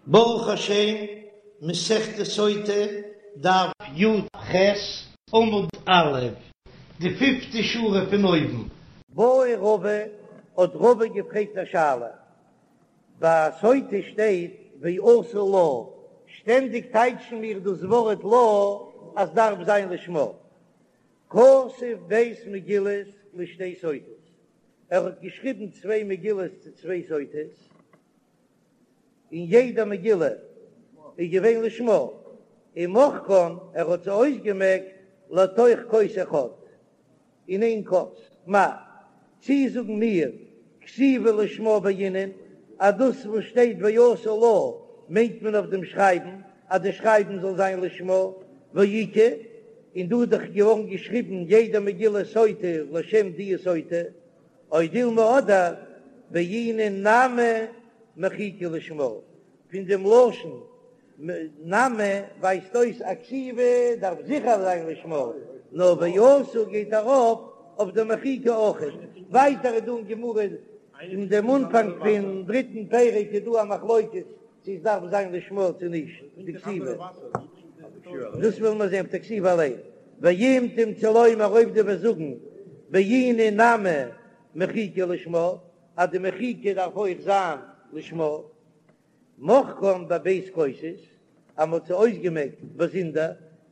ברוך השם, מסכת סוטה, דף י"ח, עמוד א', די פיפטע שורה פון אויבן. בעי רבא, האט רבא געפרעגט א שאלה, ביי סוטה שטייט ועשו לה, שטענדיג טייטשן מיר דאס ווארט לה אז דארף זיין לשמה, כתב ב' מגילות לשתי סוטות, ער האט געשריבן צוויי מגילות צו צוויי סוטות, און יעדע מגילה איז געווען לשמה, ומחקן, ער האט זיי אויסגעמעקט לתוך כוס אחד, אין איין כוס, מהו, צי זאגן מיר כתיבה לשמה בעינן, אז דאס וואס שטייט ועשו לה מיינט מען אויף דעם שרייבן, אז די שרייבן זאל זיין לשמה, והאיכא, און דא איז דאך געווארן געשריבן יעדע מגילה סוטה לשם די סוטה, או דילמא אדער בעינן נמי מחיקה לשמה, פון דעם לשון נמי ווייזט אויס אז כתיבה דארף זיכער זיין לשמה, נאר ועשו גייט ארויף אויף די מחיקה אויכעט. ווייטער איז דא אין גמרא אין דעם אנפאנג פון דריטן פרק איז דא א מחלוקת צו עס דארף זיין לשמה צו נישט די כתיבה, דאס ווילן מיר זען אויף די כתיבה אליין. ואם תמצא לומר אויב דו וועסט זאגן בעינן נמי מחיקה לשמה אז די מחיקה דארף אויך זיין לשמה, מחקן בב' כוסות, אז מ'האט זיי אויסגעמעקט באזונדער,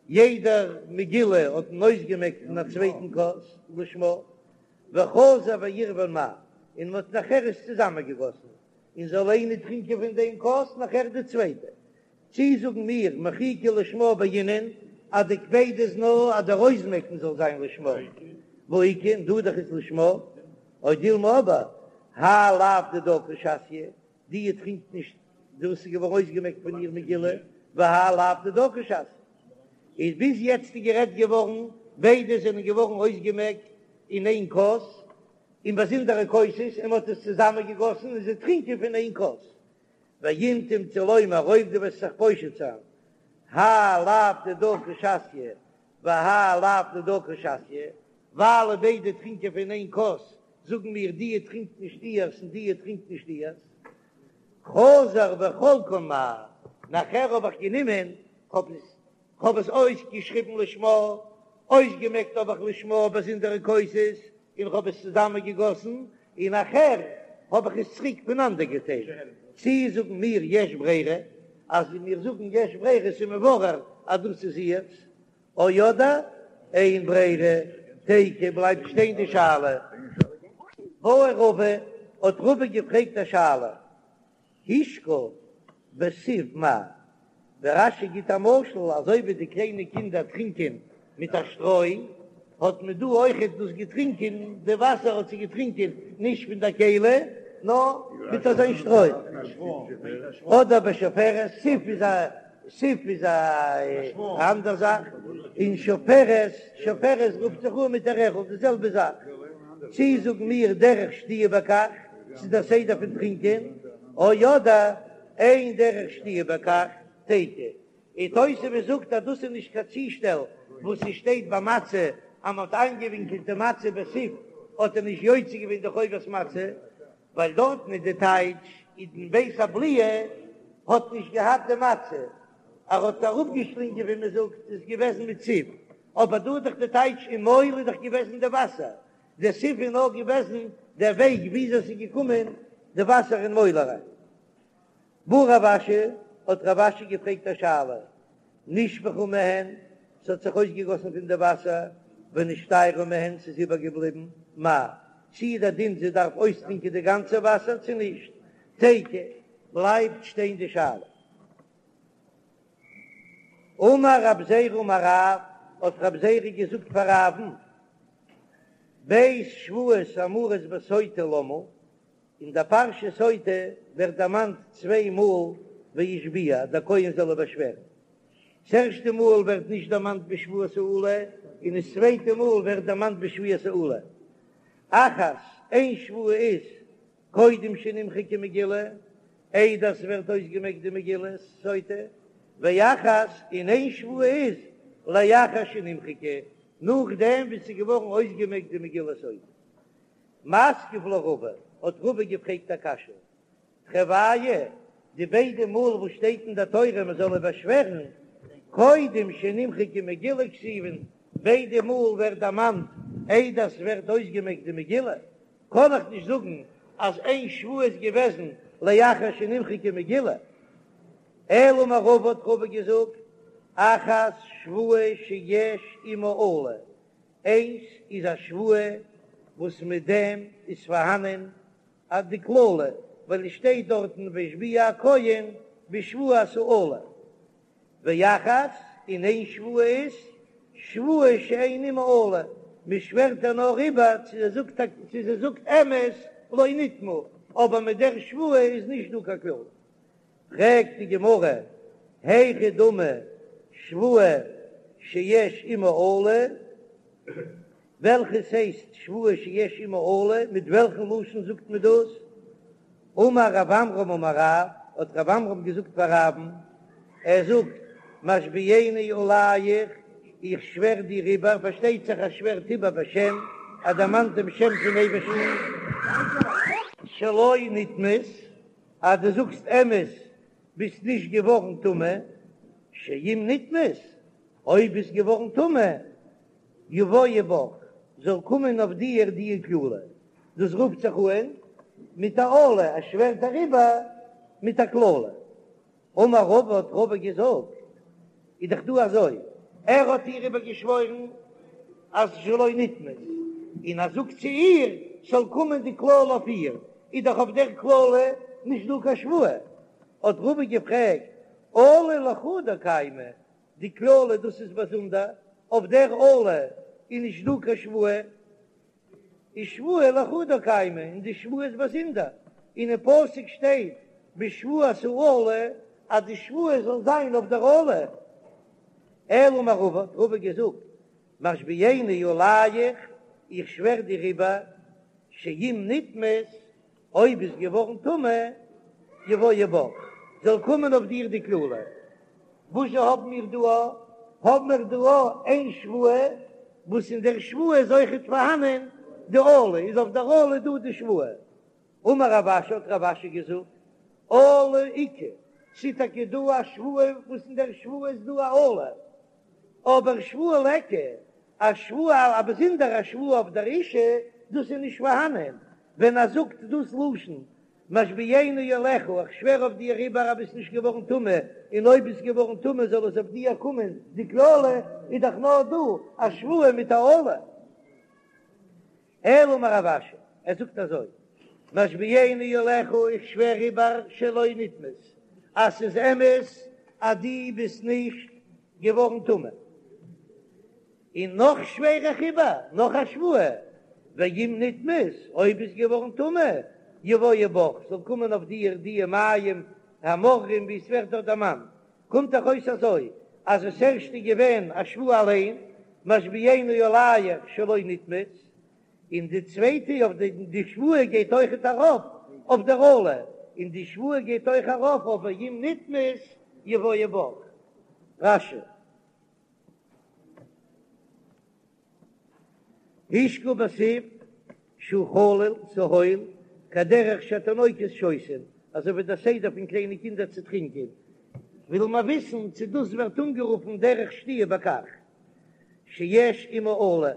יעדע מגילה האט מען אויסגעמעקט אין א צווייטן כוס לשמה, וחזר ועירבן מהו, און מ'האט נאכער עס צוזאמענגעגאסן, און זאל איינער טרינקען פון דעם כוס נאכער די צווייטע. צי זאגן מיר מחיקה לשמה בעינן אז די קפידא איז נאר אז דער אויסמעקן זאל זיין לשמה, והאיכא און דא דאך איז לשמה, או דילמא אבער האי לאו דידה קא שתיא, די טרינקט נישט דאס איז געווארן אויסגעמעקט פון איר מגילה, והאי לאו דידה קא שתיא. איז ביז יעצט איז גערעדט געווארן ביידע זענען געווארן אויסגעמעקט אין איין כוס, אין באזונדערע כוסות, און מען האט עס צוזאמען געגאסן און זיי טרינקען פון איין כוס. ואם תמצא לומר אויב דו וועסט זיך פושט זיין, האי לאו דידה קא שתיא והאי לאו דידה קא שתיא, ווייל ביידע טרינקען פון איין כוס, זאגן מיר די טרינקט נישט איהר'ס און די טרינקט נישט איהר'ס. חזר וחלקן מהו, נאכער האב איך גענומען, כ'האב עס כ'האב עס אויסגעשריבן לשמה, אויסגעמעקט האב איך לשמה באזונדערע כוסות, און כ'האב עס צוזאמען געגאסן, און נאכער האב איך עס צוריק פונאנדער געטיילט. צי זאגן מיר יש ברירה, אז מיר זאגן יש ברירה איז מבורר אז דאס איז איהר'ס, או אדער אין ברירה, תיקו בלייבט שטיין די שאלה. בעי רבא, האט רבא געפרעגט א שאלה, השקה בסיב מהו, דער רש"י גיט א משל, אזוי ווי די קליינע קינדער טרינקען מיט א שטרוי, האט מען דא אויכעט דאס געטרינקען, די וואסער האט זי געטרינקען נישט פון דער כלי, נאר מיט אזוין שטרוי. אדער בשפופרת, סיב איז א סיב איז א אנדער זאך, און שפופרת, שפופרת רופט זיך אן מיט א רערל, די זעלבע זאך. צי זאגן מיר דרך שתיה בכך, ס'איז דער סדר פון טרינקען, או אדער אין דרך שתיה בכך, תיקו. און תוספות זאגט אז דאס איז נישט קיין צושטעל וואס ס'שטייט ביי מצה אז מ'האט איינגעווינקלט די מצה בסיב האט ער נישט יוצא געווען די חובת מצה, ווייל דארטן איז די טייטש אין בית הבליעה האט נישט געהאט די מצה, ער האט אראפגעשלינגען ווי מ'זאגט איז געוועזן מיט סיב, אבער דא איז דאך די טייטש אין מויל איז דאך געוועזן די וואסער, די סיב איז נאר געוועזן דער וועג וויאזוי ס'איז געקומען די וואסער אין מויל אריין. בעי רב אשי, האט רב אשי געפרעגט א שאלה, נשפכה מהן, ס'האט זיך אויסגעגאסן פון די וואסער, ונשתיירה מהן, ס'איז איבערגעבליבן, מהו, צי איז דער דין זי דארף אויסטרינקען די גאנצע וואסער צו נישט? תיקו, בלייבט שטיין די שאלה. אמר רב זירא אמר רב, האט רב זירא געזאגט פאר רב'ן, ב' שבועות האמורות בסוטה למה, אין דער פרשה סוטה ווערט דערמאנט צוויי מאל והשביע, דער כהן זאל איר באשווערן. ס'ערשטע מאל ווערט נישט דערמאנט בשבועת האלה, און דאס צווייטע מאל ווערט דערמאנט בשבועת האלה. אחת, איין שבועה איז קודם שנמחקה מגילה, איידער ס'ווערט אויסגעמעקט די מגילת סוטה, ואחת, און איין שבועה איז לאחר שנמחקה, נאכדעם ווי ס'איז געווארן אויסגעמעקט די מגילת סוטה. מתקיף לה רבא, האט רבא געפרעגט א קשיא, תרוייהו. די ביידע מאל וואס שטייט אין דער תורה מען זאל איבערשווערן, קודם שנמחקה מגילה כתיבן, ביידע מאל ווערט דערמאנט איידער ס'ווערט אויסגעמעקט די מגילה, קען איך נישט זאגן אז איין שבועה איז געוועזן לאחר שנמחקה מגילה. אלא אמר רבא האט רבא געזאגט, אחת שבועה שיש עמה אלה, איינס איז א שבועה וואס מיט דעם איז פארהאנען אט די קללה, ווייל עס שטייט דארטן והשביע הכהן בשבועת האלה, ואחת, און איין שבועה איז שבועה שאין עמה אלה, מען שווערט איר נאר איבער צו זי זאגט צו זי זאגט אמת לא נטמאה, אבער מיט דער שבועה איז נישט דא קיין קללה. פרעגט די גמרא, היכי דמי שבועה שיש עמה אלה, וועלכעס הייסט שבועה שיש עמה אלה, מיט וועלכן לשון זאגט מען דאס? אמר רב עמרם אמר רב, האט רב עמרם געזאגט פאר רב'ן, ער זאגט, משביעני עליך, איך שווער דיר איבער, פארשטייט זיך ער שווערט איבער בשם, ער דערמאנט דעם שם פון אייבערשטן, שלא נטמאת, אז דו זאגסט אמת ביסט נישט געווארן טמא, שאם נטמאת, אויב ביסט געווארן טמא, יבואו בך, זאל קומען אויף דיר די קללה, דאס רופט זיך אן מיט א אלה, ער שווערט אריבער מיט א קללה. אמר רבא האט רבא געזאגט, איז דאך דא אזוי, ער האט איר איבערגעשוואוירן אז שלא נטמאת, און ער זאגט צו איר ס'זאל קומען די קללה אויף איר, איז דאך אויף דער קללה נישט דא קיין שבועה, האט רבא געפרעגט, אלה לחודה קיימא, די קללה דאס איז באזונדער, אויף דער אלה איז נישט דא קיין שבועה, איז שבועה לחודה קיימא, און די שבועה איז באזונדער, און אין פסוק שטייט בשבועת האלה אז די שבועה זאל זיין אויף דער אלה. אלא אמר רבא, האט רבא געזאגט, משביעני עליך, איך שווער דיר איבער, שאם נטמאת, אויב ביסט געווארן טמא, יבואו בך, זאל קומען אויף דיר די קללה. וואס זשע האבן מיר דא א? האבן מיר דא א איין שבועה, וואס אין דער שבועה איז אויכעט פארהאנען די אלה, איז אויף דער אלה דא די שבועה. אמר רב אשי, האט רב אשי געזאגט, אלה איכא, ס'איז טאקע דא א שבועה וואס אין דער שבועה איז דא א אלה, אבער שבועה ליכא, א שבועה, א באזונדערע שבועה אויף דער אישה, דאס איז נישט פארהאנען, ווען ער זאגט דאס לשון משביעני עליך, איך שווער אויף דיר איבער אז ביסט נישט געווארן טמא, און אויב ביסט געווארן טמא זאל עס אויף דיר קומען די קללה, איז דאך נאר דא א שבועה מיט א אלה. אלא אמר רב אשי, ער זאגט אזוי, משביעני עליך, איך שווער איבער שלא נטמאת, אז ס'איז אמת אז דו ביסט נישט געווארן טמא. און נאך שווער איך איבער, נאך א שבועה, ואם נטמאת, אויב ביסט געווארן טמא, יבואו בך, זאל קומען אויף דיר די מים המאררים ווי עס ווערט דארט דערמאנט, קומט דאך אויס אזוי, אז עס ערשט איז געווען א שבועה אליין, משביעני עליך שלא נטמאת, און די צווייטע אויף די די שבועה גייט אויכעט ארויף אויף דער אלה, און די שבועה גייט אויך ארויף אויף ואם נטמאת יבואו בך. רש"י. השקה בסיב שהוא חלול ס'הויל כדרך שהתינוקות שותין, אזוי ווי דער סדר פון קליינע קינדער צו טרינקען, וויל מען וויסן צו דאס ווערט אנגערופן דרך שתיה בכך שיש עמה אלה,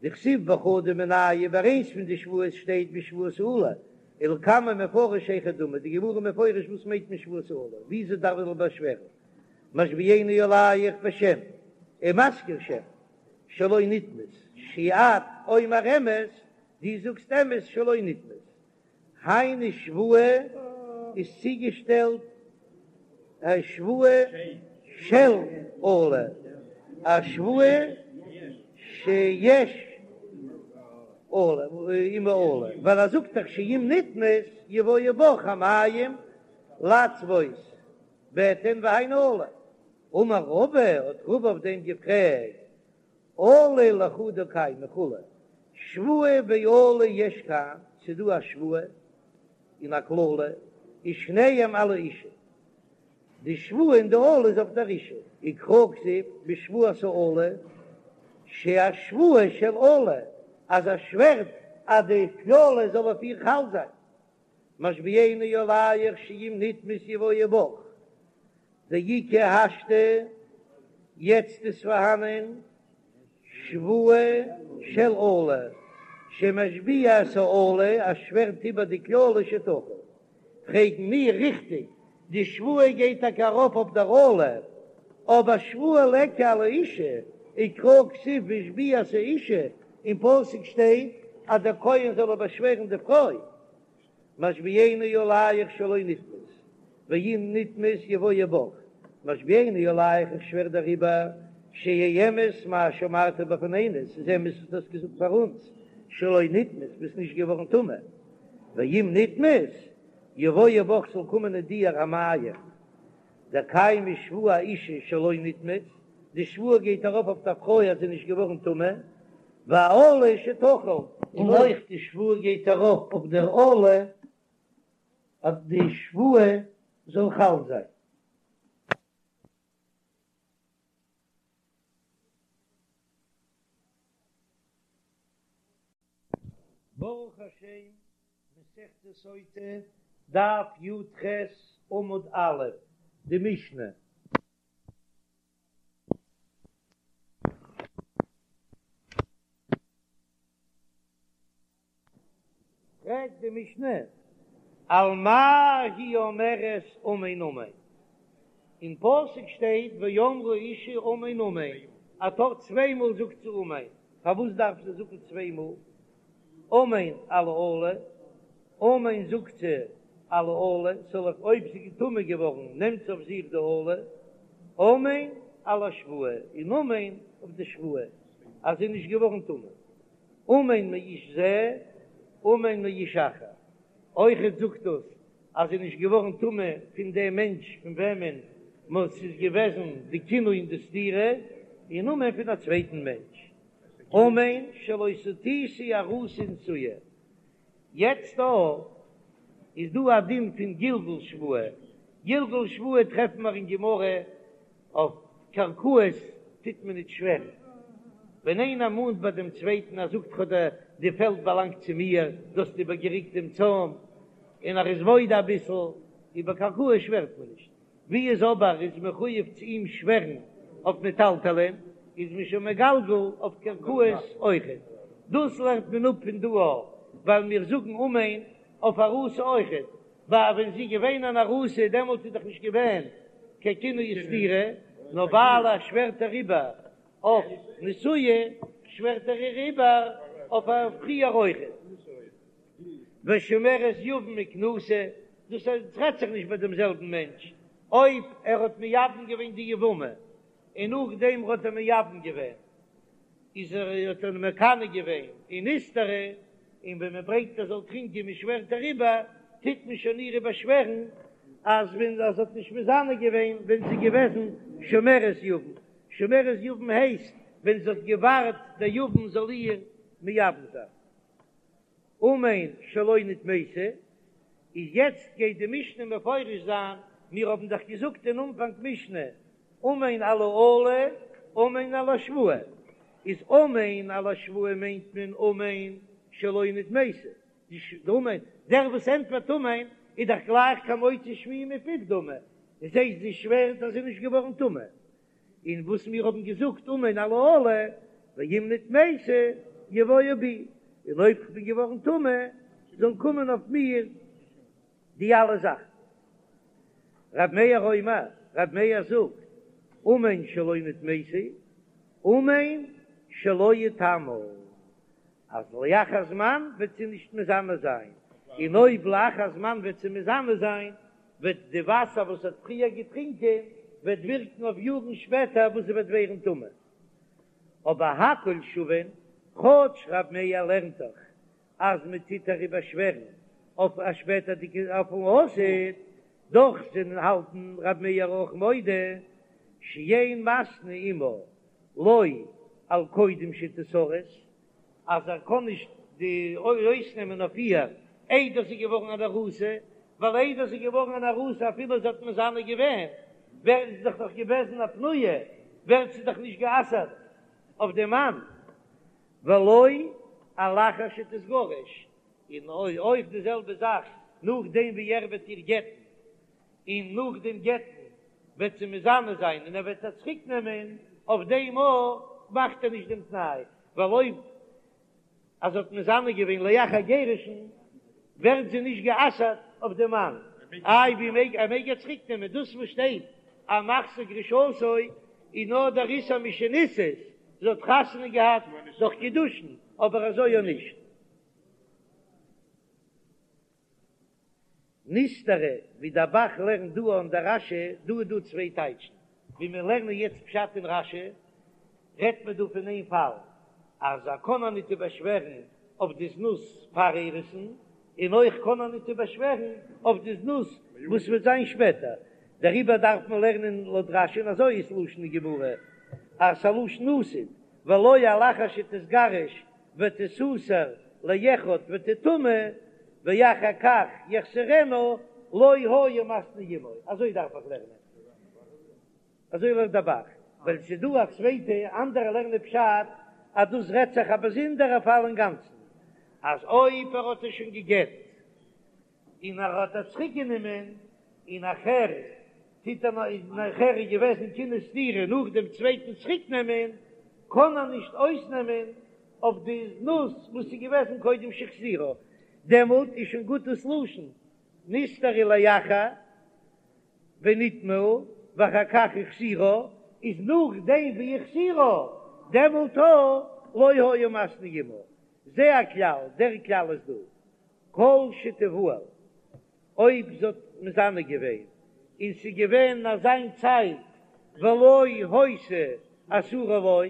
דכתיב בחדא מינייהו ביי איינס פון די שבועות שטייט בשבועת האלה, ולקמן מפרש היכי דמי, די גמרא מפרש וואס מיינט מען שבועת האלה, וויאזוי דארף מען באשווערן. משביעני עליך בשם ומזכיר שם שלא נטמאת שאת אומר אמת, דו זאגסט אמת שלא נטמאת, היינו שבועה איז צוגעשטעלט א שבועה של אלה, א שבועה שיש אלה עמה אלה, ווייל ער זאגט דאך שאם נטמאת יבואו בך המים לצבות בטן והיינו אלה. אמר רבא, האט רבא אויף דעם געפרעגט, אלה לחודה קיימא וכו', שבועה ואלה יש כאן, ס'איז דא א שבועה און א קללה, ושניהם על האישה, די שבועה און די אלה איז אויף דער אישה, וקרא כתיב בשבועת האלה, שהשבועה של אלה, אז ער שווערט אז די קללה זאל אויף איר חל זיין. משביעני עליך שאם נטמאת יבואו בך, דאיכא השתא, יעצט איז פארהאנען שבועה של אלה, שמשביע את האלה, ער שווערט איבער די קללה שתחול. פרעגן מיר, ריכטיג, די שבועה גייט טאקע ארויף אויף דער אלה, אבער שבועה ליכא על האשה, וקרא כתיב והשביע את האשה, אין פסוק שטייט אז דער כהן זאל באשווערן די פרוי. משביעני עליך שלא נטמאת, ואם נטמאת יבואו בך, משביעני עליך איך שווער דעריבער, שיהא אמת מה שאמרת בפנינו, ס'איז אמת וואס דו האסט געזאגט פאר אונז, שלא נטמאת, ביסט נישט געווארן טמא, ואם נטמאת, יבואו בך זאל קומען אין דיר המים, דקיימא שבועה אאשה שלא נטמאת, די שבועה גייט ארויף אויף דער פרוי אז זי איז נישט געווארן טמא, והאלה שתחול. און אויך די שבועה גייט ארויף אויף דער אלה אז די שבועה זאל חל זיין. ברוך השם, מסכת סוטה, דף י"ח עמוד א', די משנה. פרעגט די משנה, על מה היא אומרת אמן אמן? אין פסוק שטייט ואמרה האשה אמן אמן, א טאר צוויי מאל זאגט זי אמן, פארוואס דארף זי זאגן צוויי מאל אמן על האלה? אמן זאגט זי על האלה, ס'זאל אויף אויב זי איז טמא געווארן נעמט זי אויף זיך די אלה, אמן על השבועה, און אמן אויף די שבועה אז זי איז נישט געווארן טמא, אמן מאיש זה, אמן מאיש אחר, אויכעט זאגט דאס אז זי איז נישט געווארן טמא פון דעם מענטש פון וועמען ס'איז געוועזן די קינוי און די סתירה, און אמן פון א צווייטן מענטש, אמן שלא סטיתי ארוסה ונשואה. יעצט דא איז דא א דין פון גלגול שבועה, גלגול שבועה טרעפן מיר אין גמרא אויף קרקעות טוט מען ניט שווערן, ווען איינער מאנט ביי דעם צווייטן ער זאגט כ'האב די די פעלד באלאנגט צו מיר, דו האסט איבערגעריקט דעם צוים, און ער איז מודה אביסל, איבער קרקעות שווערט מען נישט. ווי איז אבער איז מחויב צו אים שווערן אויף מטלטלין, איז מען שוין מגלגל אויף קרקעות אויכעט. דאס לערנט מען אפ פון דא א, ווייל מיר זאגן אמן אויף ארוסה אויכעט, ווייל ווען זי איז געווען אן ארוסה דעמאלט איז דאך נישט געווען קיין קינוי וסתירה, נאר ווייל ער שווערט אריבער אויף נשואה שווערט ער איר איבער אויף א פריער אויכעט. ושומרת יבם וכנוסה, דאס רעדט זיך נישט ביי דעם זעלבן מענטש, אויב ער האט מייבם געווען די יבמה און נאכדעם האט ער מייבם געווען איז ער האט ער מקנא געווען און נסתרה, און ווען מען ברענגט ער זאל טרינקען מען שווערט אריבער, טוט מען שוין איר איבערשווערן אז ווען אז זי האט נישט מזנה געווען ווען זי איז געוועזן שומרת יבם, שומרת יבם הייסט ווען זי האט געווארט דער יבם זאל איר מייבם זיין. אמן שלא נטמאתי, איז יעצט גייט די משנה מפרש זיין, מיר האבן דאך געזאגט אין אנפאנג משנה, אמן על האלה, אמן על השבועה, איז אמן על השבועה מיינט מען אמן שלא נטמאתי, די אמן, דער וואס ענטפערט אמן איז דאך גלייך כמוציא שמועה מפיו דמי, דאס הייסט זי שווערט אז זי איז נישט געווארן טמא, און וואס מיר האבן געזאגט אמן על האלה, ואם נטמאתי יבואו בי, און אויב כ'בין געווארן טמא, זאלן קומען אויף מיר די אלע זאכן. ר' מאיר אומר, ר' מאיר זאגט, אמן שלא נטמאתי, אמן שלא אטמא, אז לאחר זמן וועט זי נישט מזנה זיין, און אויב לאחר זמן וועט זי מזנה זיין, וועט די וואסער וואס האט פריער געטרינקען וועט ווירקן אויף יארן שפעטער וואס זי וועט ווערן טמא. אבער הכל שווין, כאטש ר' מאיר לערנט דאך אז מען טוט איר איבערשווערן אויף א שפעטערדיגע אויפן עתיד, דאך זענען האלטן ר' מאיר אויך מודה שאין מתנה עמה לא על קודם שתיארס, אז ער קען נישט די אויסנעמען אויף איר איידער זי איז געווארן אן ארוסה, ווייל איידער זי איז געווארן אן ארוסה אפילו זי האט מזנה געווען, ווערט זי דאך נאך געוועזן א פנויה, ווערט זי דאך נישט גע'אסר'ט אויף דעם מאן, ולא על אחר שתתגרש, און אויך די זעלבע זאך. נאכדעם ווי ער וועט איר גט'ן, און נאך דעם גט'ן וועט זי מזנה זיין און ער וועט איר צוריק נעמען, אויף דעם אויך מאכט ער נישט דעם תנאי, ווייל אויב אז זי האט מזנה געווען לאחר גירושין ווערט זי נישט גע'אסר'ט אויף דעם מאן, איי ווי מעג ער מעג איר צוריק נעמען, דאס וואס שטייט אז מחזיר גרושתו איז נאר דער איסור משנישאת, זי האט חתונה געהאט דורך קידושין, אבער אזוי אויך נישט. נסתרה, ווי דער ב"ח לערנט דא אן דער רש"י, דא איז דא צוויי טייטשן, ווי מיר לערנען יעצט פשט אין רש"י, רעדט מען דא פון איין פאל, אז ער קען איר ניט איבערשווערן אויף די זנות פאר אירוסין, און אויך קען ער ניט איבערשווערן אויף די זנות וואס וועט זיין שפעטער, דעריבער דארף מען לערנען לויט רש"י, און אזוי איז לשון אין גמרא, אז ס'א לשון עתיד, ולא על אחר שתתגרש ותסתר לאחד ותטמא ואחר כך יחזירנה לא היה מתנה עמו, אזוי דארף איך לערנען, אזוי לערנט דער ב"ח, ווייל ס'איז דא א צווייטע אנדערע לערנען פשט אז דאס רעדט זיך א באזונדערע פאל אינגאנצן, אז אויב ער האט איר שוין גע'גט און ער האט איר צוריק גענומען, און נאכער טוט ער נאך, נאכער איז געוועזן קינוי וסתירה נאך דעם צווייטן צוריק נעמען, קען ער נישט אויסנעמען אויף די זנות וואס איז געוועזן קודם שהחזירה, דעמאלט איז שוין גוט דאס לשון נסתרה לאחר ונטמאה ואחר כך החזירה, איז נאכדעם ווי החזירה דעמאלט לא היה מתנה עמה, זה הכלל, דער כלל איז דא. כל שתבעל, אויב זי האט מזנה געווען און ס'איז געווען אזא צייט ולא היתה אסורה לו,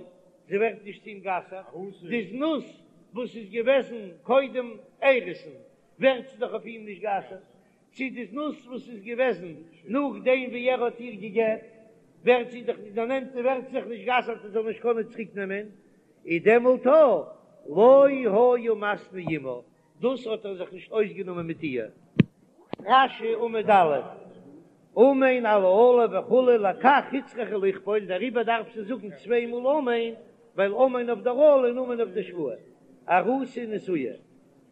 זי ווערט נישט צו אים גע'אסר'ט, די זנות וואס איז געוועזן קודם אירוסין ווערט זי דאך אויף אים נישט גע'אסר'ט, צו די זנות וואס איז געוועזן נאכדעם ווי ער האט איר גע'גט ווערט זי דאך נישט דערנעמט און ווערט זיך נישט גע'אסר'ט ער זאל נישט קענען צוריק נעמען, איז דעמאלט לא היה מתנה עמה, דאס האט ער זיך נישט אויסגענומען מיט איר. רש"י עמוד א', אמן על האלה וכו' לכך הוצרכה לכפול, דעריבער דארף זי זאגן צוויי מאל אמן, ווייל אמן אויף דער אלה און אמן אויף די שבועה. ארוסה ונשואה,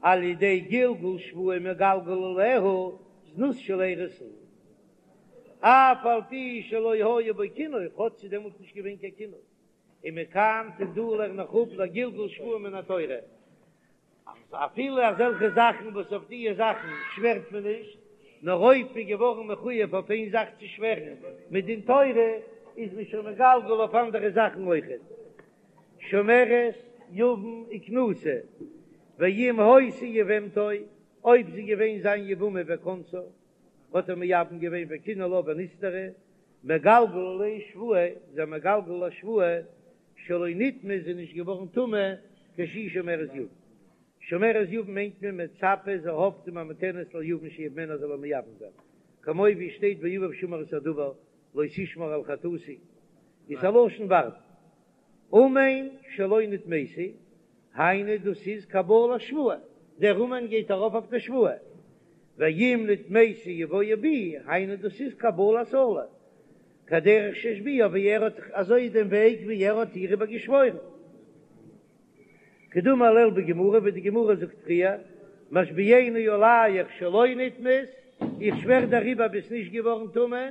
על ידי גלגול שבועה מגלגל עליה זנות של אירוסין, אף על פי שלא היה בו קינוי, כאטש ס'איז דעמאלט נישט געווען קיין קינוי. ומכאן פון דא לערן איך אפ לגלגול שבועה מן התורה, אז אפילו אזעלכע זאכן וואס אויף דיע זאכן שווערט מען נישט, נאר אויב מ'איז געווארן מחויב אויף איין זאך צו שווערן מדין תורה, איז מען שוין מגלגל אויף אנדערע זאכן אויכעט. שומרת יבם וכנוסה, ואם היתה יבמתו, אויב זי געווען זיין יבמה וכנסה, האט ער מייבם געווען וקינא לה ונסתרה, מגלגל עליה שבועה, איז ער מגלגל א שבועה שלא נטמאה איז זי נישט געווארן טמא כשהיא שומרת יבם. שומרת יבם מיינט מען מצפה זי האפט וממתנת ליבם שיבמנה זאל איר מייבם זיין, כמו ווי שטייט ואביו שמר את הדבר לא תשמר על חטאתי, איז א לשון ווארטן. אמן שלא נטמאתי, היינו דאס איז קבלת שבועה, דער אמן גייט ארויף אויף די שבועה, ואם נטמאתי יבואו בי, היינו דאס איז קבלת אלה, כדרך שהשביעה ווי ער האט אזוי דעם וועג ווי ער האט איר איבער געשוואוירן. כדאמר לעיל בגמרא ווי די גמרא זאגט פריער, משביעני עליך שלא נטמאת, איך שווער דעריבער ביסט נישט געווארן טמא,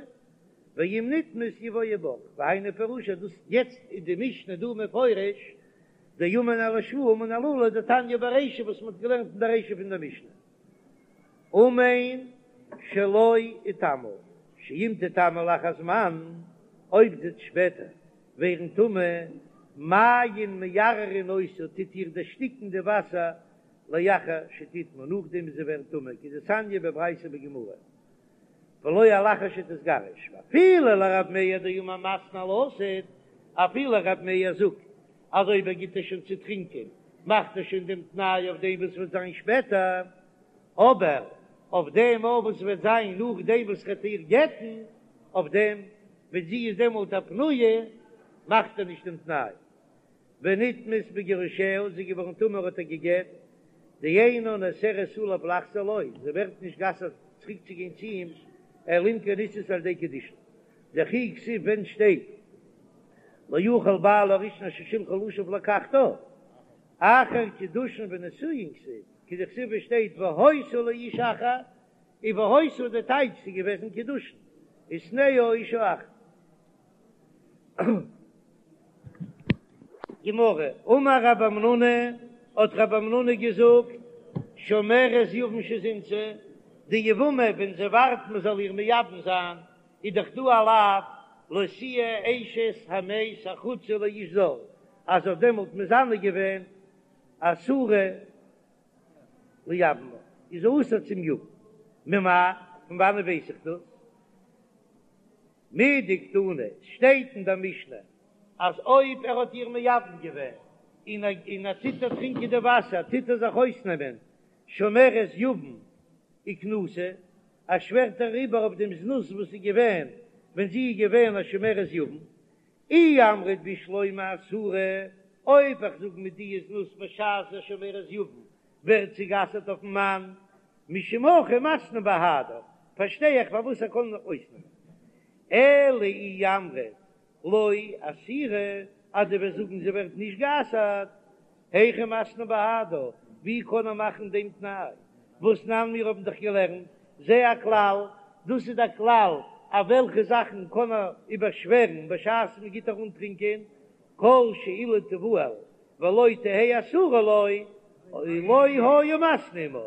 ואם נטמאת יבואו בך, והיינו פירושא דאס יעצט איז די משנה דא מפרש דאמן על השבועה אמן על האלה דתניא ברישא וואס מען האט געלערנט אין די רישא פון די משנה אמן שלא אטמא שאם תטמא לאחר זמן אויב זי וועט שפעטער ווערן טמא מים מערערין אותה טוט איר דערשטיקן די וואסער לאחר שתטמא נאכדעם ווי זי ווערט טמא כדתניא בברייתא בגמרא. ולא על אחר שתתגרש, ואפילו לרב מאיר דאמר מתנה על העתיד, אפילו רב מאיר זאגט אז אויב ער גיט איר שוין צו טרינקען מאכט ער שוין דעם תנאי אויף דעם וואס וועט זיין שפעטער, אבער אויף דעם אויף וואס וועט זיין נאכדעם וואס ר'עט איר גט'ן, אויף דעם ווען זי איז דעמאלט א פנויה מאכט ער נישט דעם תנאי. ונטמאת בגירושיה, זי איז געווארן טמא האט ער גע'גט, דאינה נאסרת עליו לחזור לו, זי ווערט נישט גע'אסר'ט צוריק צו גיין צו אים, אלא אם כן נישאת על ידי קידושין, דכי כתיב ווען שטייט לא יוכל בעלה הראשון אשר שלחה לשוב לקחתה, אחר קידושין ונישואין כתיב, כדכתיב ווי שטייט והיתה לאיש אחר. און והיתה די טייטש ס'איז געוועזן קידושין ושנאה אשה אחת. גמרא, אמר רב המנונא, האט רב המנונא געזאגט, שומרת יבם שזינתה, די יבמה ווען זי ווארט מען זאל איר מייבם זיין, איז דאך דא א לאו לא תהיה אשת המת החוצה לאיש זר, אז זי האט דעמאלט מזנה געווען אסורה ליבמה, איז זי אסור צום יבם, ממאי, פון וואנעט ווייס איך דאס? מדקתני, שטייט אין דער משנה אז אויב ער האט איר מייבם געווען און און ער טוט איר טרינקען די וואסער טוט ער זיך אויסנעמען שומרת יבם וכנוסה, ער שווערט אריבער אויף דעם זנות וואס איז געווען ווען זי איז געווען א שומרת יבם. אי אמרת בשלמא אסורה, אויב איך זאג מיט די זנות בשעת א שומרת יבם ווערט זי גע'אסר'ט אויפן מאן, משום הכי מתני בהדה, פארשטיי איך פארוואס ער קען אויסנעמען. אלא אי אמרת לא אסירא, אז דו וועסט זאגן זי ווערט נישט גע'אסר'ט, היכי מתני בהדה, ווי קען ער מאכן דעם תנאי? והתנן מיר האבן דאך געלערנט, זה הכלל, דאס איז דער כלל, אויף וועלכע זאכן קען ער איבערשווערן בשעת מען גיט איר אנטרינקען, כל שאילו תבעל ולא תהא אסורה לו, לא היה מתנה עמה,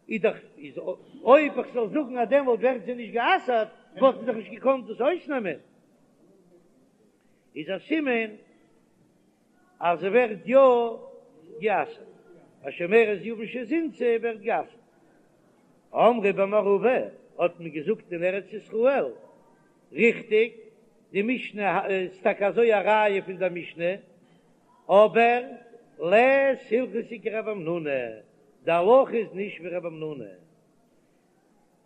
איז דאך איז אויב איך זאל זאגן אז דעמאלט ווערט זי נישט גע'אסר'ט, וואלט מען דאך נישט געקאנט דאס אויסנעמען, איז א סימן אז זי ווערט יא גע'אסר'ט, א שומרת יבם שזינתה ווערט גע'אסר'ט. אמרי במערבא האט מען געזאגט אין ארץ ישראל, ריכטיג, די משנה איז טאקע אזוי א ראיה פון דער משנה, אבער לית הלכתא כרב המנונא, די הלכה איז נישט ווי רב המנונא.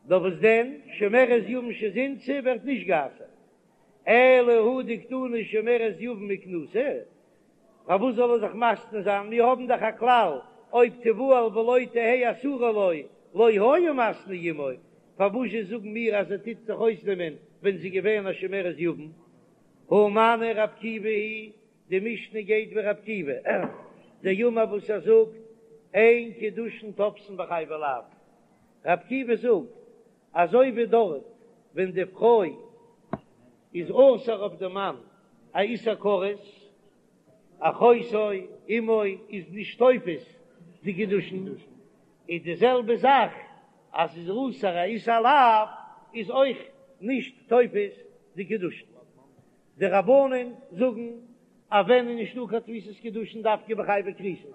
נאר וואס דען, שומרת יבם שזינתה ווערט נישט גע'אסר'ט, אלא הא דקתני שומרת יבם וכנוסה, פארוואס זאל ער זיך מתנה זיין, מיר האבן דאך א כלל, אויב תבעל ולא תהא אסורה לו, לא היה מתנה עמו, פארוואס זשע זאגן מיר אז ער טוט זיך אויסנעמען ווען זי איז געווען א שומרת יבם? הא מני רב עקיבא היא די משנה גייט ווי רב עקיבא, דאמר וואס ער זאגט, אין קידושין תופסין בחייבי לאוין. רב עקיבא זאגט, אזוי ווי דארט ווען די פרוי איז אסור אויף די מאן א איסור כרת, אחותו אמו איז נישט תופס די קידושין, איז די זעלבע זאך אז ס'איז אסור א איסור לאו איז אויך נישט תופס די קידושין. די רבנן זאגן אז ווען איז נישטא קיין תפיסת קידושין דווקא בחייבי כריתות,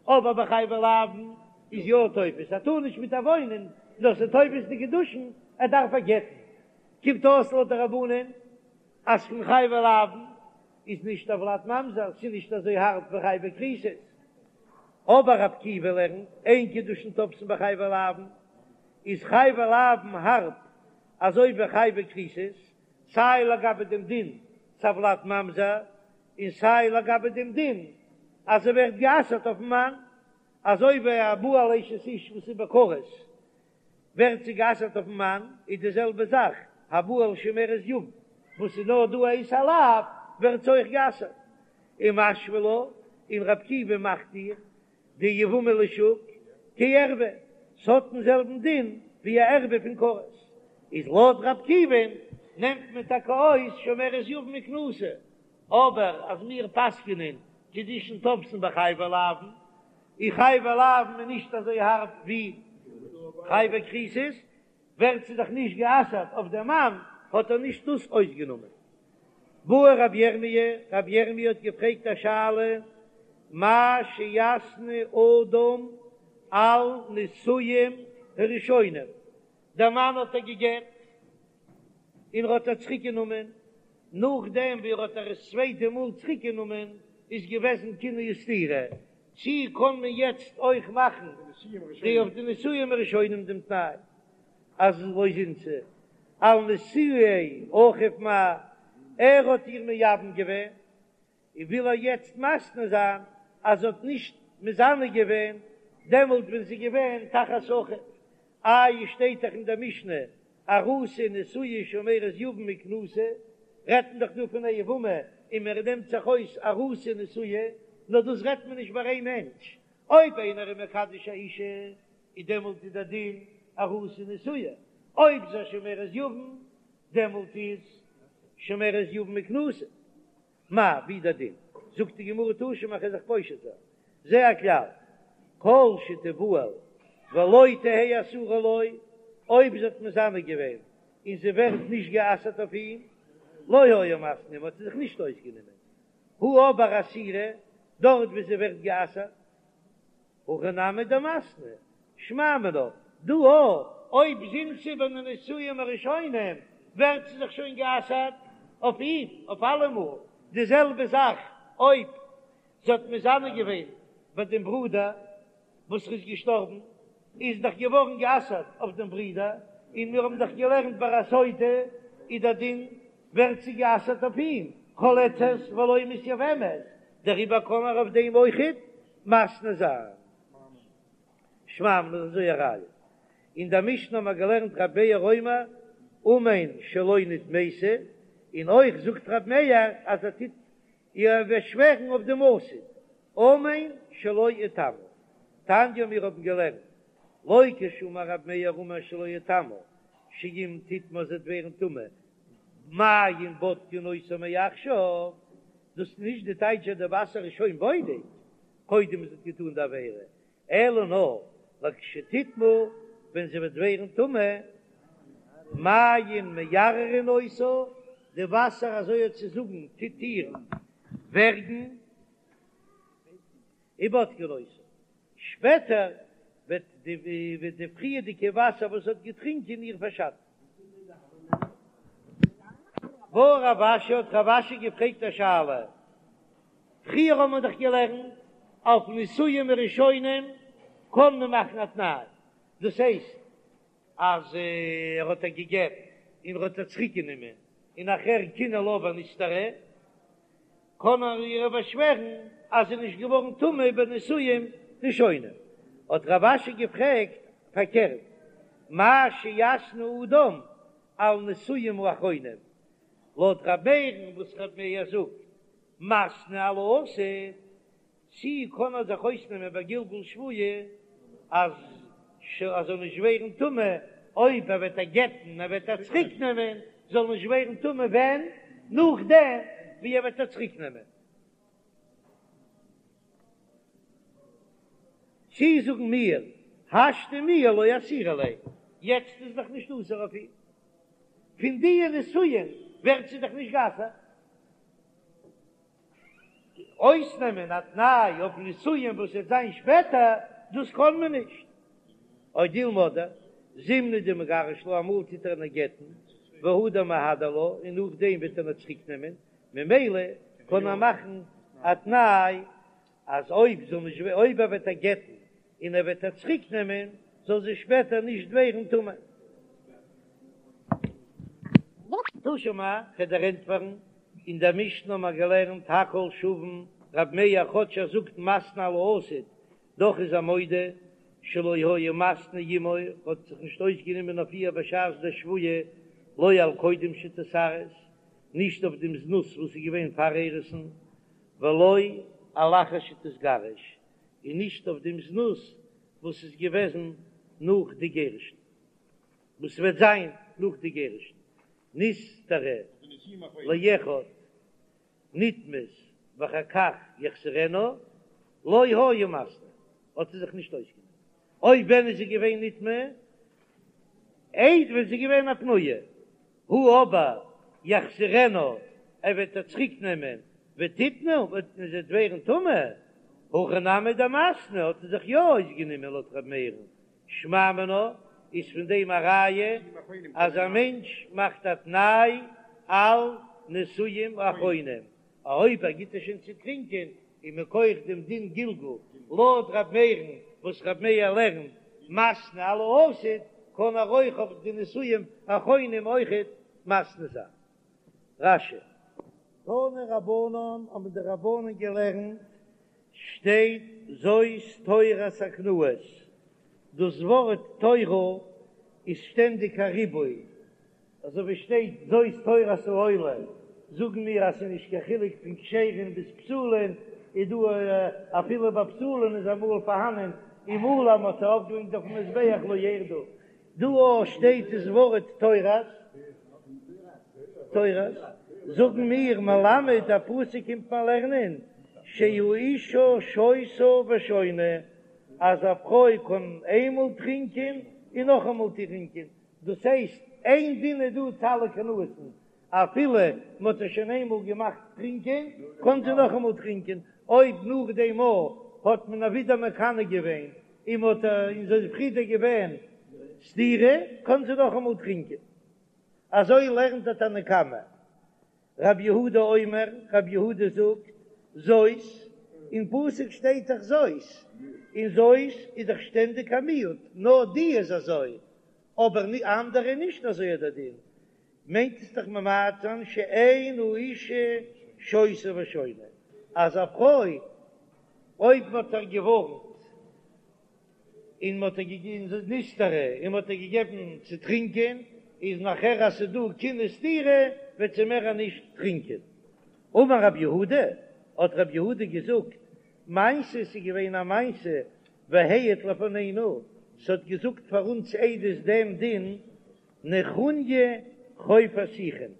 אבער בחייבי לאוין איז יא תופס, ער טאר נישט מיט איר וואוינען נאר ס'איז תופס די קידושין, ער דארף איר גט'ן. קומט אויס לויט די רבנן אז פון חייבי לאוין איז נישט הולד ממזר, ס'איז נישט אזוי הארב ווי חייבי כריתות. אבער רב עקיבא לערנט אין קידושין תופסין בחייבי לאוין, איז חייבי לאוין הארב אזוי ווי חייבי כריתות, סיי לגבי דעם דין ס'איז הולד ממזר, און סיי לגבי דעם דין אז זי ווערט גע'אסר'ט אויפ'ן מאן, אזוי ווי הבא על אשת איש וואס איז בכרת ווערט זי גע'אסר'ט אויפ'ן מאן, איז די זעלבע זאך הבא על שומרת יבם וואס איז נאר דא א איסור לאו ווערט זי אויך גע'אסר'ט. ומשוי לה, און רב עקיבא מאכט איר די יבמה לשוק כערוה, ס'האט דעם זעלבן דין ווי א ערוה פון כרת, איז לויט רב עקיבא'ן נעמט מען טאקע אויס שומרת יבם וכנוסה, אבער אז מיר פסק'נען קידושין תופסין בחייבי לאוין, און חייבי לאוין איז נישט אזוי הארב ווי חייבי כריתות, ווערט זי דאך נישט גע'אסר'ט אויף דעם מאן, האט ער נישט דאס אויסגענומען. בעי רבי ירמי', רבי ירמי' האט געפרעגט א שאלה, מהו שיתנה אדם על נישואין הראשונים, דער מאן האט איר גע'גט און ער האט איר צוריק גענומען, נאכדעם ווי ער האט איר עס צווייטע מאל צוריק גענומען איז געוועזן קינוי וסתירה, צי קען מען יעצט אויך מאכן די אויף די נישואין הראשונים דעם תנאי אז לא זינתה על נישואי אחיו מהו, ער האט איר מייבם געווען און וויל ער יעצט מתנה זיין אז זי האט נישט מזנה געווען דעמאלט ווען זי איז געווען תחת אחיו, איי שטייט דאך אין דער משנה ארוסה ונשואה שומרת יבם וכנוסה, רעדט מען דאך דא פון א יבמה און מען נעמט זיך אויס ארוסה ונשואה, נאר דאס רעדט מען נישט ביי איין מענטש, אויב איינער איז מקדש א אישה איז דעמאלט איז דער דין ארוסה ונשואה. אויב זי איז א שומרת יבם, דעמאלט איז שומרת יבם מכנוסה. מאי, ווי דער דין? זאגט די גמרא תא שמע כ'וועל זיך פושט זיין. זה הכלל, כל שתבעל ולא תהא אסורה לו, אויב זי האט מזנה געווען און זי ווערט נישט גע'אסר'ט אויף אים, לא היה מתנה עמה, האט ער זיך נישט אויסגענומען. הא אבער אסירה, דארט וואו זי ווערט גע'אסר'ט, הכי נמי דמתנה, שמע מינה, דא אויך, אויב זינתה בנישואין הראשונים ווערט זי זיך שוין גע'אסר'ט אויף אים אויף אלעמאל, די זעלבע זאך אויב זי האט מזנה געווען ביי דעם ברודער וואס איז געשטארבן, איז דאך געווארן גע'אסר'ט אויף דעם ברודער, און מיר האבן דאך געלערנט ביי א סוטה איז דער דין ווערט זי גע'אסר'ט אויף אים, חולצת ולא מתייבמת, דעריבער קען ער אויף דעם אויכעט מתנה זיין. שמע מינה אזוי א ראיה. אין דער משנה האבן מיר געלערנט רבי מאיר אומר אמן שלא נטמאתי, און אויך זאגט רבי מאיר אז ער טוט איר באשווערן אויף דעם עתיד, אמן שלא אטמא. תניא מיר האבן געלערנט לא כשאמר רבי מאיר אמן שלא אטמא, שאם תטמא זי וועט ווערן טמא, מים בודקין אותה מעכשיו, דאס איז נישט די טייטש אז די וואסער איז שוין בודק קודם זי האט געטאן די עבירה, אלא נאר לכשתטמא ווען זי וועט ווערן טמא, מים מערערין אותה, די וואסער אזוי האט צו זאגן טוט איר ווערגן, ובודקין אותה, שפעטער וועט די פריערדיגע וואסער וואס זי האט געטרינקען איר פארשאטן. בעי רב אשי האט רב אשי געפרעגט א שאלה, פריער האט מען דאך געלערנט אויף נישואין הראשונים קען מען מאכן א תנאי, דאס הייסט אז ער האט איר געגעבן און ער האט איר צוריק גענומען און נאכער קינא לה ונסתרה, קען ער איר באשווערן אז זי איז נישט געווארן טמא בנישואין ראשונים. האט רב אשי געפרעגט פארקערט, מהו שיתנה אדם על נישואין האחרונים, לויט ר' מאיר'ן וואס ר' מאיר זאגט מתנה על העתיד, צי קען ער זיך אויסנעמען ביי גלגול שבועה אז ער זאל נישט ווערן טמא אויב ער וועט איר גט'ן ער וועט איר צוריק נעמען זאל נישט ווערן טמא ווען? נאכדעם ווי ער וועט איר צוריק נעמען. צי זאגן מיר השתא מיהא לא אסירא ליה, יעצט איז דאך נישט אסור אויף אים, פון די נישואין ווערט זי דאך נישט גע'אסר'ט. אויסנעמען א תנאי אויף נישואין וואס וועט זיין שפעטער, דאס קען מען נישט. או דילמא זימנין דמגרש לה, אמאל טוט ער איר גט'ן, והדר מהדר לה, און נאכדעם וועט ער איר צוריק נעמען, ממילא קען ער מאכן א תנאי אז אויב זאל נישט אויב ער וועט איר גט'ן און ער וועט איר צוריק נעמען, זאל זי שפעטער נישט ווערן טמא. תא שמע, כ'וועל דיר ענטפערן, אין דער משנה האבן מיר געלערנט הכל שוין, רב מאיר כאטש ער זאגט מתנה על העתיד, דאך איז ער מודה שלא היה מתנה עמה, האט זיך נישט אויסגענומען אויף איר בשעת דער שבועה, לא על קודם שתתארס, נישט אויף דעם זנות וואס איז געווען פאר אירוסין, ולא על אחר שתתגרש, און נישט אויף דעם זנות וואס איז געוועזן נאך די גירושין, וואס וועט זיין נאך די גירושין, נסתרה לאחד נטמאת ואחר כך יחזירנה, לא היה מתנה, האט ער זיך נישט אויסגענומען, אויב ווען איז זי געווען נטמאה? איידער ווען זי איז געווען א פנויה, הא אבער יחזירנה, ער וועט איר צוריק נעמען, ותטמא, און זי וועט ווערן טמא, הכי נמי דמתנה, האט ער זיך יא אויסגענומען לויט ר' מאיר'ן, שמע מינה, איז פון דעם א ראיה אז א מענטש מאכט א תנאי על נישואין אחרונים, אויב ער גיט איר שוין צו טרינקען און מכח דעם דין גלגול לויט ר' מאיר'ן וואס ר' מאיר לערנט מתנה על העתיד קען ער אויך אויף די נישואין אחרונים אויכעט מתנה זיין. רש"י. תנו רבנן האבן די רבנן געלערנט שטייט זאת תורת הקנאות, דאס ווארט תורה איז שטענדיג א ריבוי, אזוי ווי שטייט זאת תורת העולה, זאגן מיר אז ס'איז נישט קיין חילוק פון כשר'ן ביז פסול'ן, איז דא אפילו ביי פסול'ן איז אמאל פארהאנען אמאל אז מ'האט עס ארויפגעברענגט אויפן מזבח לא ירדו. דא אויך שטייט דאס ווארט תורת, תורת, זאגן מיר מלמד דער פסוק קומט מיר לערנען שהאשה שותה ושונה, אז א פרוי קען איינמאל טרינקען און נאכאמאל טרינקען, דאס הייסט איין דין איז דא צו אלע קנאות'ן, אפילו מען האט איר שוין איינמאל געמאכט טרינקען, קען זי נאכאמאל טרינקען, אויב נאך דעם מאל האט מען איר ווידער מקנא געווען און מען האט און זי איז פריער געווען סתירה, קען זי נאכאמאל טרינקען. אזוי לערנט דער תנא קמא. רב יהודה אומר, רב יהודה זאגט, זאת, אין פסוק שטייט דאך זאת, און זאת איז דאך שטענדיג א מיעוט, נאר די איז אזוי, אבער אנדערע נישט אזוי איז דער דין, מיינט עס דאך ממעט זיין שאין האשה שותה ושונה, אז א פרוי אויב מען האט איר געווארנט און מען האט איר געגעבן נסתרה און מען האט איר געגעבן צו טרינקען, איז נאכער אז ס'איז דא קינוי וסתירה וועט זי מער נישט טרינקען. אמר רב יהודה, האט רב יהודה געזאגט, מעשה ס'איז געווען א מעשה והעיד לפנינו, ס'האט געזאגט פאר אונז עדות דעם דין נחוניא חופר שיחין,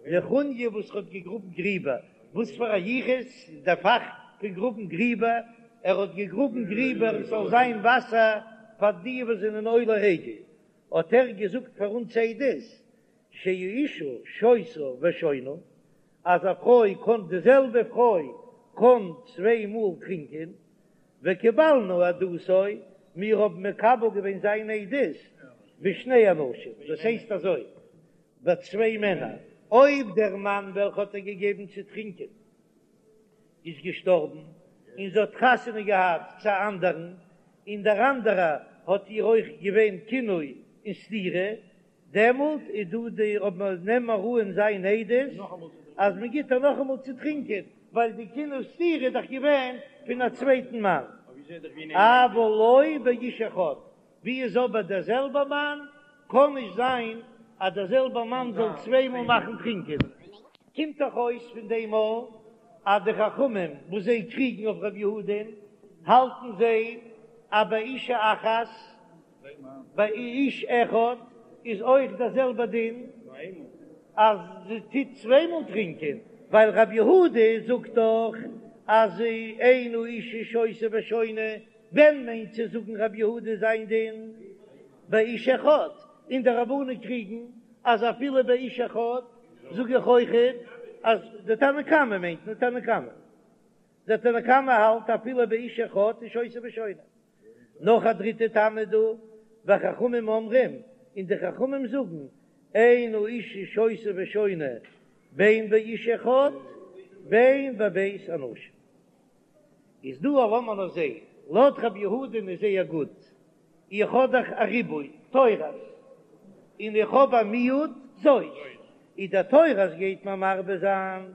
נחוניא וואס האט געגראבן גריבער, וואס פאר א יחוס איז דער פאך פון גראבן גריבער, ער האט געגראבן גריבער עס זאל זיין וואסער פאר די וואס זענען עולה רגל, האט ער געזאגט פאר אונז עדות, שהאשה שותה ושונה, אז א פרוי קען די זעלבע פרוי קען צוויי מאל טרינקען, וקיבלנו עדותו, מיר האבן מקבל געווען זיין עדות בשני אנשים, דאס הייסט אזוי, ביי צוויי מענער, אויב דער מאן וועלכע האט איר געגעבן צו טרינקען איז געשטארבן, און זי האט חתונה געהאט צו א אנדערן, און דער אנדערער האט איר אויך געווען קינוי און סתירה, דעמאלט איז דא די אויב מען נעמט מיר אן זיין עדות אז מען גיט איר נאכאמאל צו טרינקען, ווייל די קינוי וסתירה איז דאך געווען פון א צווייטן מאן. אבל לא באיש אחד, ווי איז אבער דער זעלבער מאן, קען נישט זיין אז דער זעלבער מאן זאל צוויי מאל מאכן טרינקען. קומט דאך אויס פון דעם אויך אז די חכמים וואס זיי קריגן אויף ר' יהודה'ן האלטן זיי אז באישה אחת ביי איש אחד איז אויך דער זעלבער דין אז זי טוט צוויי מאל טרינקען, ווייל רבי יהודה זאגט דאך אז אין האשה שותה ושונה, ווען מיינט צו זאגן רבי יהודה זיין דין באיש אחד, און די רבנן קריגן אז אפילו באיש אחד זאג איך אויכעט אז די תנא קמא מיינט מען תנא קמא, דער תנא קמא האלט אפילו באיש אחד איז שותה ושונה. נאך א דריטע טעם איז דא, וחכמים אומרים, און די חכמים זאגן, אין האשה שותה ושונה בין באיש אחד בין בב' אנשים. איז דא א לאמיר נאר זעהן, לויט רבי יהודה'ן איז זייער גוט, איך האב דאך א ריבוי תורת, און איך האב א מיעוט זאת, איז דער תורת גייט מיר מרבה זיין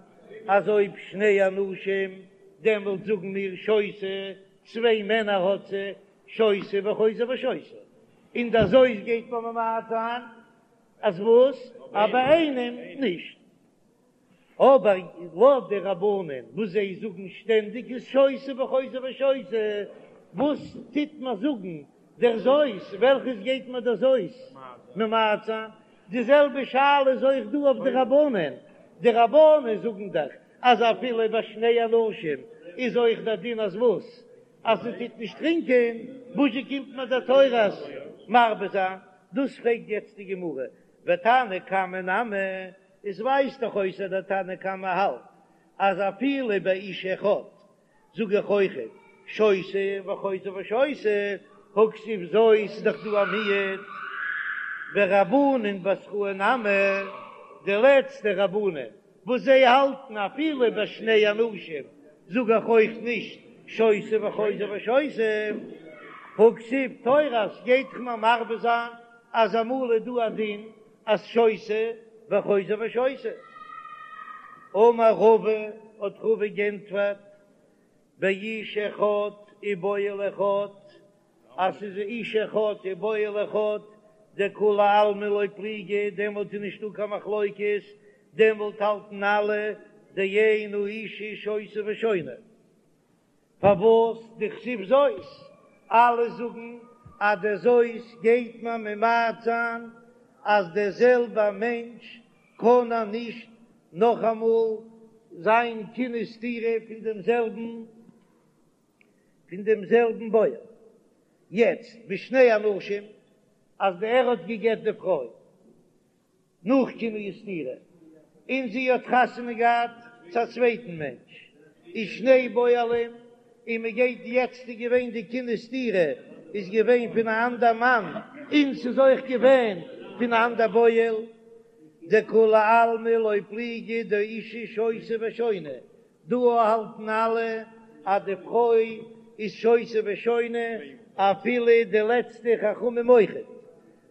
אז אויב שני אנשים דעמאלט זאגן מיר שותה צוויי מענער האט זי, שותה וחוזר ושותה, און דער זאת גייט מען ממעט זיין אז וואס? אז ביי איינעם נישט. אבער לויט די רבנן וואס זיי זאגן שטענדיג איז שותה וחוזר ושותה, וואס טוט מען זאגן דער זאת, וועלכעס גייט מען דער זאת ממעט זיין? די זעלבע שאלה איז אויך דא אויף די רבנן, די רבנן זאגן דאך אז אפילו ביי שני אנשים איז אויך דער דין אז וואס? אז זי טוט נישט טרינקען, וואזשע קומט מיר דער תורת מרבה זיין? דאס פרעגט יעצט די גמרא, ותנא קמא נמי, עס ווייזט דאך אויס אז דער תנא קמא האלט אז אפילו ביי איש אחד זאג איך אויכעט שותה וחוזר ושותה, הא כתיב זאת איז דאך דא א מיעוט, ורבנן בתראי נמי, די לעצטע רבנן וואס זיי האלטן אפילו ביי שני אנשים זאג איך אויך נישט שותה וחוזר ושותה, הא כתיב תורת גייט דאך מיר מרבה זיין אז אמאל איז דא א דין אז שותה וחוזר ושותה. אמר רבא, האט רבא גענטפערט, באיש אחד ובועל אחד, אז ס'איז איש אחד ובועל אחד, דכולי עלמא לא פליגי, דעמאלט איז נישטא קיין מחלוקת, דעמאלט האלטן אלע דאין האשה שותה ושונה. פארוואס דכתיב זאת? אלע זאגן. אז דער זאת גייט מען ממעט זיין אז דער זעלבע מענטש קען ער נישט נאכאמאל זיין קינוי וסתירה פון דעם זעלבן פון דעם זעלבן בועל. יעצט בשני אנשים אז די ער האט גע'גט די פרוי נאך קינוי וסתירה און זי האט חתונה געהאט צו א צווייטן מענטש ושני בועלים און מען גייט יעצט איז געווען די קינוי וסתירה איז געווען פון א אנדער מאן און ס'איז אויך געווען פון א אנדער בועל דכולי עלמא לא פליגי דאשה שותה ושונה דא האלטן אלע אז די פרוי איז שותה ושונה אפילו די לעצטע חכמים אויכעט,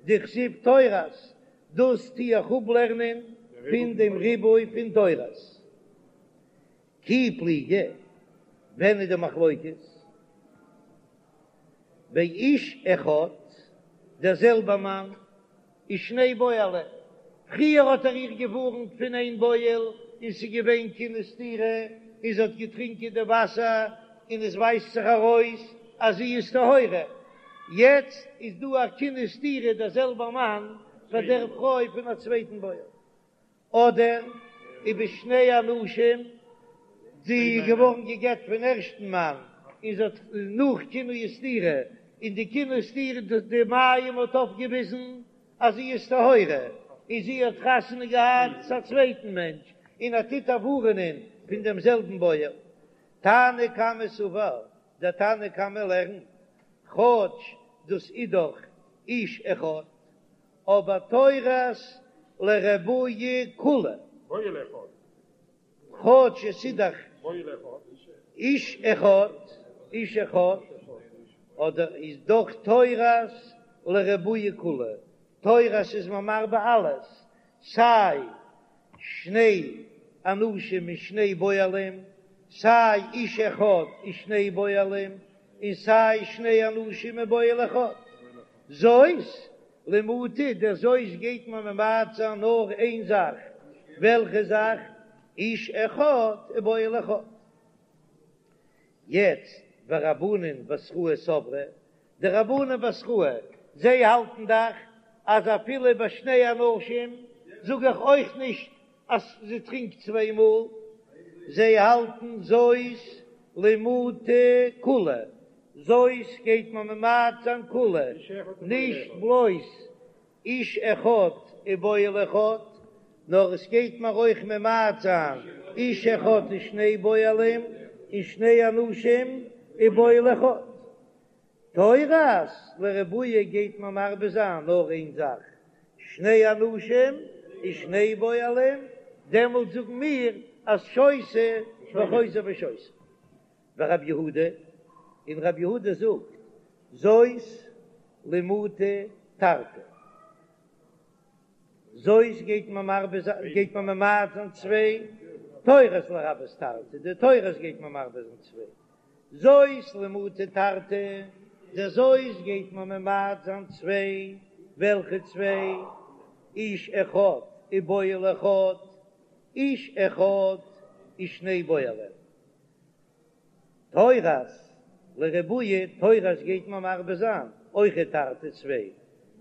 דכתיב תורת, דאס טו איך אפלערנען פון דעם ריבוי פון תורת. כי פליגי, ווען איז די מחלוקת? באיש אחד, דער זעלבער מאן ושני בועלים, פריער האט ער איר געווארנט פון איין בועל און ס'איז געווען קינוי וסתירה און זי האט געטרינקען די וואסער און עס ווייזט זיך ארויס אז זי איז טהורה, יעצט איז דא א קינוי וסתירה דער זעלבער מאן פאר דער פרוי פון א צווייטן בועל. אדער ובשני אנשים, זי איז געווארן גע'גט פון ערשטן מאן און זי האט נאך קינוי וסתירה, און די קינוי וסתירה די מים האט אויפגעוויזן אז זי איז טהורה, און זי האט חתונה געהאט צו א צווייטן מענטש, און ער טוט איר ווארענען פון דעם זעלבן בועל. תנא קמא סבר, דער תנא קמא לערנט, כאטש דאס איז דאך איש אחד, אבער תורת לרבויי כולהו. כאטש עס איז דאך איש אחד, איש אחד, אדער איז דאך תורת לרבויי כולהו, תורת איז מען מרבה אלעס, סיי שני אנשים און שני בועלים, סיי איש אחד און שני בועלים, און סיי שני אנשים און בועל אחד. זאת למעוטי, דער זאת גייט מען ממעט זיין נאר איין זאך, וועלכע זאך? איש אחד ובועל אחד. יעצט ורבנן בתראי סברי, די רבנן בתראי, זיי האלטן דאך אז אפילו ביי שני אנשים זאג איך אויך נישט אז זי טרינקט צוויי מאל, זיי האלטן זאת למעוטי כולהו, זאת גייט מען ממעט זיין כולהו, נישט בלויז איש אחד ובועל אחד, נאר עס גייט מען אויך ממעט זיין איש אחד ושני בועלים און שני אנשים ובועל אחד. תורת לרבויי גייט מען מרבה זיין נאר איין זאך, שני אנשים ושני בועלים, דעמאלט זאגן מיר אז שותה וחוזר ושותה. ורב יהודה, און רב יהודה זאגט, זאת למעוטי תרתי. זאת גייט מען מרבה זיין, גייט מען ממעט זיין צוויי, תורת לרבות תרתי, די תורת גייט מען מרבה זיין צוויי. זאת למעוטי תרתי, די זאת גייט מען ממעט זיין צוויי, וועלכע צוויי? איש אחד ובועל אחד, איש אחד ושני בועלים. תורת לרבויי, תורת גייט מען מרבה זיין אויכעט תרתי צוויי,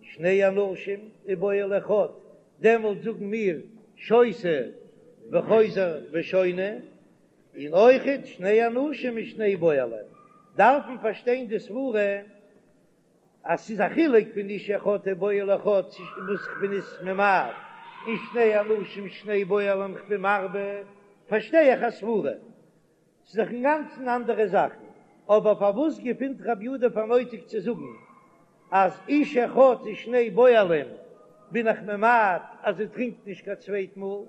שני אנשים ובועל אחד, דעמאלט זאגן מיר שותה וחוזר ושונה, און אויכעט שני אנשים ושני בועלים, דארף מען פארשטיין די סברה אז ס'איז א חילוק פון איש אחד ובועל אחד וואס כ'בין עס ממעט, און שני אנשים שני בועלים כ'בין מרבה, פארשטיי איך א סברה, ס'איז דאך אינגאנצן אנדערע זאכן, אבער פארוואס געפינט רבי יהודה פאר נויטיג צו זאגן אז איש אחד ושני בועלים בין איך ממעט אז זי טרינקט נישט קיין צווייט מאל,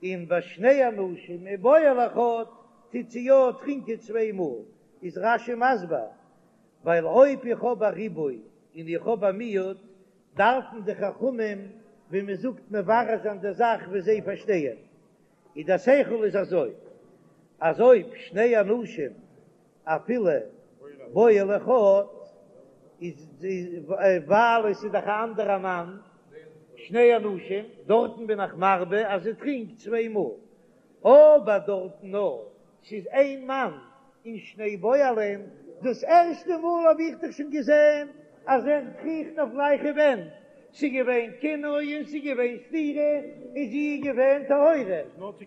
און ביי שני אנשים ובועל אחד טוט זי יא טרינקען צוויי מאל, איז רש"י מסביר ווייל אויב איך האב א ריבוי און איך האב א מיעוט דארפן די חכמים ווי מען זאגט מברר זיין די זאך ווי זיי פארשטייען, איז דער שכל איז אזוי אז אויב שני אנשים אפילו בועל אחד איז ווייל עס איז דאך א אנדערע מאן שני אנשים דארטן בין איך מרבה אז זי טרינקט צוויי מאל אבער דארטן נאר ס'איז איין מאן און שני בועלים דאס ערשטע מאל האב איך דאך שוין געזען. אז ער קריכט אויף גלייכע ווענט, ס'איז געווען קינוי און ס'איז געווען סתירה און זי איז געווען טהורה,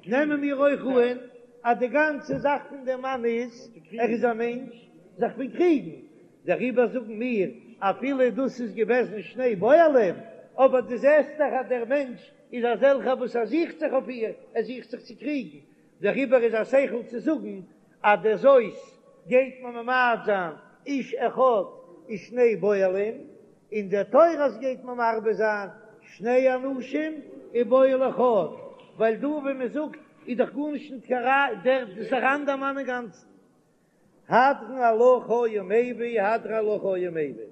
נעמען מיר אויך אן אז די גאנצע זאך פון דעם מאן איז ער איז א מענטש זיך פון קריגן, דעריבער זאגן מיר אפילו דאס איז געוועזן שני בועלים, אבער דו זעסט דאך אז דער מענטש איז אזעלכער וואס ער זוכט זיך אויף איר, ער זוכט זיך צו קריגן, דעריבער איז א שכל צו זאגן אז דער זאת גייט מען ממעט זיין איש אחד ושני בועלים, און דער תורת גייט מען מרבה זיין שני אנשים ובועל אחד, ווייל דא ווי מען זאגט איז דאך גארנישט ניט קיין ראיה, דער דאס איז אן אנדער מאן אינגאנצן. הדרן עלך היה מביא, הדרן עלך היה מביא.